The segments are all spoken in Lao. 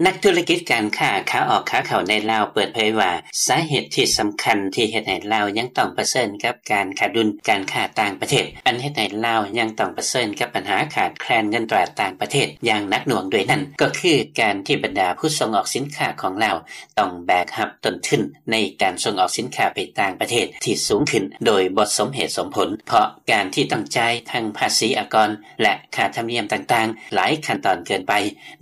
ນັກທຸລະກິດການຄ້າຂາອອກຂາເຂົ້າໃນລາວເປີດເຜີຍວ່າ ສາເຫດທີ່ສຳຄັນທີ່ເຮັດໃຫ້ລາວຍັງຕ້ອງປະເຊີນກັບການຂາດດຸນການຄ້າຕ່າງປະເທດ ອັນເຮັດໃຫ້ລາວຍັງຕ້ອງປະເຊີນກັບບັນຫາຂາດແຄລນເງິນຕາຕ່າງປະເທດຢ່າງໜັກໜ່ວງດ້ວຍນັ້ນ ກໍຄືການທີ່ບັນດາຜູ້ສົ່ງອອກສິນຄ້າຂອງລາວ ຕ້ອງແບກຮັບຕົ້ນທຶນໃນການສົ່ງອອກສິນຄ້າໄປຕ່າງປະເທດທີ່ສູງຂຶ້ນໂດຍບໍ່ສົມເຫດສົມຜົນ ເພາະການທີ່ຕ້ອງຈ່າຍທັງພາສີອາກອນ ແລະ ຄ່າທຳນຽມຕ່າງໆ ຫຼາຍຂັ້ນຕອນເກີນໄປ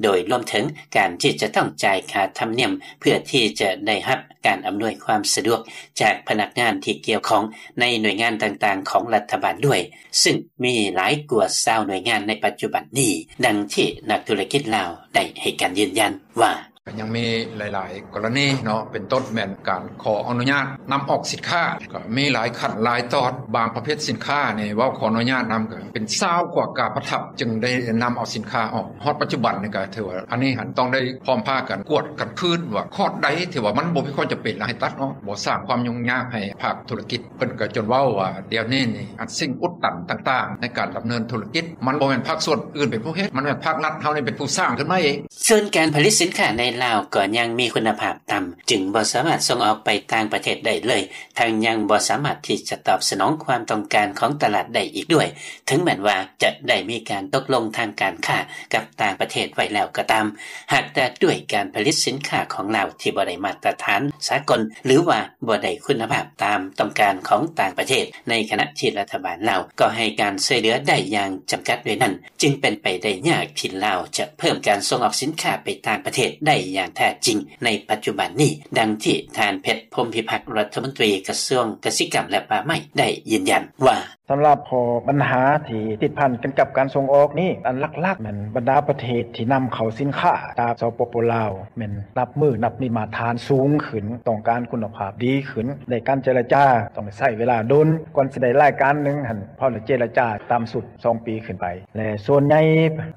ໂດຍລວມເຖິງການທີ່ຈະຕ້ອງຈ່າຍຄ່າທຳນຽມ ເພື່ອທີ່ຈະໄດ້ຮັບການອຳນວຍຄວາມສະດວກຈາກພະນັກງານທີ່ກ່ຽວຂ້ອງໃນໜ່ວຍງານຕ່າງໆຂອງລັດຖະບານດ້ວຍ ຊຶ່ງມີຫຼາຍກວ່າຊາວໜ່ວຍງານໃນປັດຈຸບັນນີ້, ດັ່ງທີ່ນັກທຸລະກິດລາວໄດ້ໃຫ້ການຢືນຢັນວ່າ: ກໍຍັງມີຫຼາຍໆກໍລະນີເນາະ ເປັນຕົ້ນແມ່ນການຂໍອະນຸຍາດນຳອອກສິນຄ້າ ກໍມີຫຼາຍຂັ້ນຫຼາຍຕອນ ບາງປະເພດສິນຄ້ານີ້ເວົ້າຂໍອະນຸຍາດນຳ ກໍເປັນຊາວກວ່າກາປະທັບ ຈຶ່ງໄດ້ນຳເອົາສິນຄ້າອອກ. ຮອດປັດຈຸບັນນີ້ກໍຖືວ່າ ອັນນີ້ຫັ້ນຕ້ອງໄດ້ພ້ອມພາກັນກວດກັນຄືນວ່າ ຂໍ້ໃດທີ່ວ່າມັນບໍ່ມີຄວາມຈຳເປັນ ແລ້ວໃຫ້ຕັດອອກ ບໍ່ສ້າງຄວາມຫຍຸ້ງຍາກໃຫ້ພາກທຸລະກິດ. ເພິ່ນກໍຈົນເວົ້າວ່າ ດຽວນີ້ນີ້ ອັນສິ່ງອຸດຕັນຕ່າງໆໃນການດຳເນີນທຸລະກິດ ມັນບໍ່ແມ່ນພາກສ່ວນອື່ນເປັນຜູ້ເຮັດ ມັນແມ່ນພາກລັດເຮົານີ້ເປັນຜູ້ສ້າງຂຶ້ນມາເອງ. ສ່ວນການຜະລິດສິນຄ້າໃນລາວກໍຍັງມີຄຸນນະພາບຕ່ຳ ຈຶ່ງບໍ່ສາມາດສົ່ງອອກໄປຕ່າງປະເທດໄດ້ເລີຍ, ທັງຍັງບໍ່ສາມາດທີ່ຈະຕອບສະໜອງຄວາມຕ້ອງການຂອງຕະຫຼາດໄດ້ອີກດ້ວຍ, ເຖິງແມ່ນວ່າຈະໄດ້ມີການຕົກລົງທາງການຄ້າກັບຕ່າງປະເທດໄວ້ແລ້ວກໍຕາມ, ຫາກແຕ່ດ້ວຍການຜະລິດສິນຄ້າຂອງລາວທີ່ບໍ່ໄດ້ມາດຕະຖານສາກົນ ຫຼືວ່າບໍ່ໄດ້ຄຸນນະພາບຕາມຕ້ອງການຂອງຕ່າງປະເທດ, ໃນຂະນະທີ່ລັດຖະບານລາວກໍໃຫ້ການຊ່ວຍເຫຼືອໄດ້ຢ່າງຈຳກັດດ້ວຍນັ້ນ, ຈຶ່ງເປັນໄປໄດ້ຍາກທີ່ລາວຈະເພີ່ມການສົ່ງອອກສິນຄ້າໄປຕ່າງປະເທດໄດ້ຢ່າງແທ້ຈິງໃນປັດຈຸບັນນີ້, ດັ່ງທີ່ທ່ານ ເພັດ ພົມພິພັກ ລັດຖະມົນຕີກະຊວງກະສິກຳ ແລະ ປ່າໄມ້ ໄດ້ຢືນຢັນວ່າ: ສຳລັບຂໍ້ບັນຫາທີ່ຕິດພັນກັນກັບການສົ່ງອອກນີ້, ອັນຫຼັກໆແມ່ນບັນດາປະເທດທີ່ນຳເຂົ້າສິນຄ້າຈາກ ສປປ ລາວ ແມ່ນນັບມື້ນັບມີມາດຕະຖານສູງຂຶ້ນ, ຕ້ອງການຄຸນນະພາບດີຂຶ້ນ, ແລະ ການເຈລະຈາຕ້ອງໄດ້ໃຊ້ເວລາດົນ ກ່ອນຊິໄດ້ລາຍການໜຶ່ງຫັ້ນ, ພໍລະເຈລະຈາຕ່ຳສຸດ ສອງປີຂຶ້ນໄປ ແລະ ສ່ວນໃຫຍ່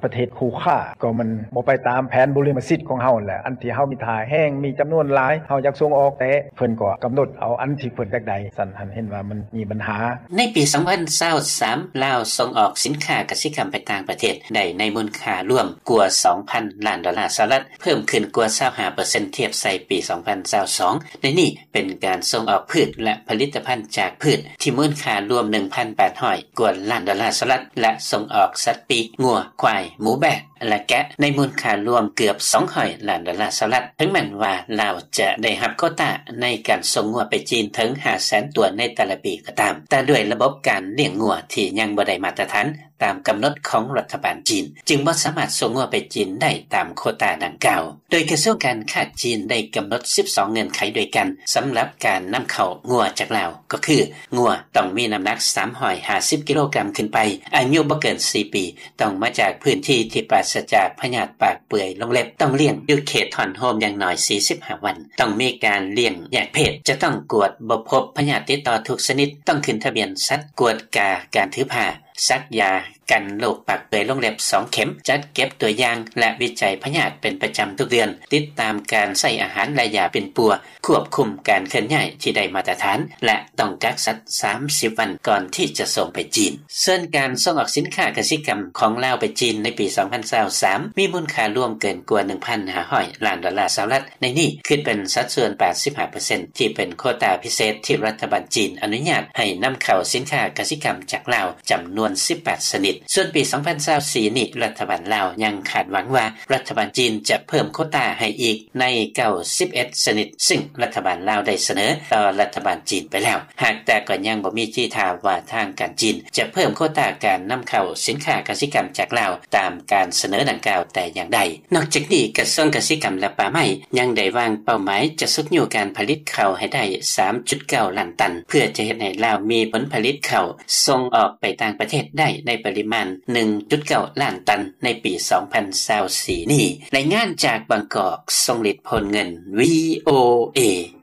ປະເທດຄູ່ຄ້າກໍມັນບໍ່ໄປຕາມແຜນບຸລິມະສິດຂອງເຮົາແຫຼະ, ອັນທີ່ເຮົາມີທ່າແຮງ ມີຈຳນວນຫຼາຍ ເຮົາຢາກສົ່ງອອກ ແຕ່ເພິ່ນກໍກຳນົດເອົາອັນທີ່ເພິ່ນຢາກໄດ້, ຊັ້ນຫັ້ນເຫັນວ່າມັນມີບັນຫາ. ໃນປີສອງພັນຊາວສາມ ລາວສົ່ງອອກສິນຄ້າກະສິກຳໄປຕ່າງປະເທດໄດ້ໃນມູນຄ່າລວມກວ່າສອງພັນລ້ານໂດລາສະຫະລັດ, ເພີ່ມຂຶ້ນກວ່າຊາວຫ້າເປີເຊັນທຽບໃສ່ປີສອງພັນຊາວສອງ. ໃນນີ້ ເປັນການສົ່ງອອກພືດ ແລະ ຜະລິດຕະພັນຈາກພືດ ທີ່ມູນຄ່າລວມໜຶ່ງພັນແປດຮ້ອຍກວ່າລ້ານໂດລາສະຫະລັດ ແລະ ສົ່ງອອກສັດປີກ, ງົວ, ຄວາຍ, ໝູ, ແບ້ ແລະ ແກະ ໃນມູນຄ່າລວມເກືອບສອງຮ້ອຍລ້ານໂດລາສະຫະລັດ. ເຖິງແມ່ນວ່າລາວຈະໄດ້ຮັບໂຄຕາໃນການສົ່ງງົວໄປຈີນເຖິງຫ້າແສນຕົວໃນແຕ່ລະປີກໍຕາມ, ແຕ່ດ້ວຍລະບົບການລ້ຽງງົວທີ່ຍັງບໍ່ໄດ້ມາດຕະຖານ ຕາມກຳນົດຂອງລັດຖະບານຈີນ, ຈຶ່ງບໍ່ສາມາດສົ່ງງົວໄປຈີນໄດ້ຕາມໂຄຕາດັ່ງກ່າວ. ໂດຍກະຊວງການຄ້າຈີນໄດ້ກຳນົດສິບສອງເງື່ອນໄຂດ້ວຍກັນ ສຳລັບການນຳເຂົ້າງົວຈາກລາວ, ກໍຄື ງົວຕ້ອງມີນ້ຳໜັກສາມຮ້ອຍຫ້າສິບກິໂລກຣາມຂຶ້ນໄປ, ອາຍຸບໍ່ເກີນສີ່ປີ, ຕ້ອງມາຈາກພື້ນທີ່ທີ່ປາສະຈາກພະຍາດປາກເປື່ອຍລົງເລັບ, ຕ້ອງລ້ຽງຢູ່ເຂດຮ້ອນໂຮມຢ່າງໜ້ອຍສີ່ສິບຫ້າວັນ, ຕ້ອງມີການລ້ຽງແຍກເພດ, ຈະຕ້ອງກວດບໍ່ພົບພະຍາດຕິດຕໍ່ທຸກຊະນິດ, ຕ້ອງຂຶ້ນທະບຽນສັດ, ກວດກາການຖືພາ, ສັກຢາກັນໂລກປາກເປື່ອຍລົງເລັບສອງເຂັມ, ຈັດເກັບຕົວຢ່າງ ແລະ ວິໄຈພະຍາດເປັນປະຈຳທຸກເດືອນ, ຕິດຕາມການໃຊ້ອາຫານ ແລະ ຢາປິ່ນປົວ, ຄວບຄຸມການເຄື່ອນຍ້າຍທີ່ໄດ້ມາດຕະຖານ ແລະ ຕ້ອງກັກສັດສາມສິບວັນກ່ອນທີ່ຈະສົ່ງໄປຈີນ. ສ່ວນການສົ່ງອອກສິນຄ້າກະສິກຳຂອງລາວໄປຈີນໃນປີສອງພັນຊາວສາມ ມີມູນຄ່າລວມເກີນກວ່າໜຶ່ງພັນຫ້າຮ້ອຍລ້ານໂດລາສະຫະລັດ, ໃນນີ້ຄິດເປັນສັດສ່ວນແປດສິບຫ້າເປີເຊັນ ທີ່ເປັນໂຄຕາພິເສດທີ່ລັດຖະບານຈີນອະນຸຍາດໃຫ້ນຳເຂົ້າສິນຄ້າກະສິກຳຈາກລາວ ຈຳນວນສິບແປດຊະນິດ. ສ່ວນປີສອງພັນຊາວສີ່ນີ້ ລັດຖະບານລາວຍັງຄາດຫວັງວ່າ ລັດຖະບານຈີນຈະເພີ່ມໂຄຕາໃຫ້ອີກໃນເກົ້າສິບເອັດຊະນິດ, ຊຶ່ງລັດຖະບານລາວໄດ້ສະເໜີຕໍ່ລັດຖະບານຈີນໄປແລ້ວ, ຫາກແຕ່ກໍຍັງບໍ່ມີທີທ່າວ່າທາງການຈີນຈະເພີ່ມໂຄຕາການນຳເຂົ້າສິນຄ້າກະສິກຳຈາກລາວ ຕາມການສະເໜີດັ່ງກ່າວແຕ່ຢ່າງໃດ. ນອກຈາກນີ້, ກະຊວງກະສິກຳ ແລະ ປ່າໄມ້ ຍັງໄດ້ວາງເປົ້າໝາຍຈະຊຸກຍູ້ການຜະລິດເຂົ້າໃຫ້ໄດ້ສາມຈຸດເກົ້າລ້ານຕັນ, ເພື່ອຈະເຮັດໃຫ້ລາວມີຜົນຜະລິດເຂົ້າສົ່ງອອກໄປຕ່າງປະເທດໄດ້ໃນປະລິມານໜຶ່ງຈຸດເກົ້າລ້ານຕັນໃນປີສອງພັນຊາວສີ່ນີ້. ລາຍງານຈາກບາງກອກ, ຊົງລິດ ໂພນເງິນ, ວີໂອເອ.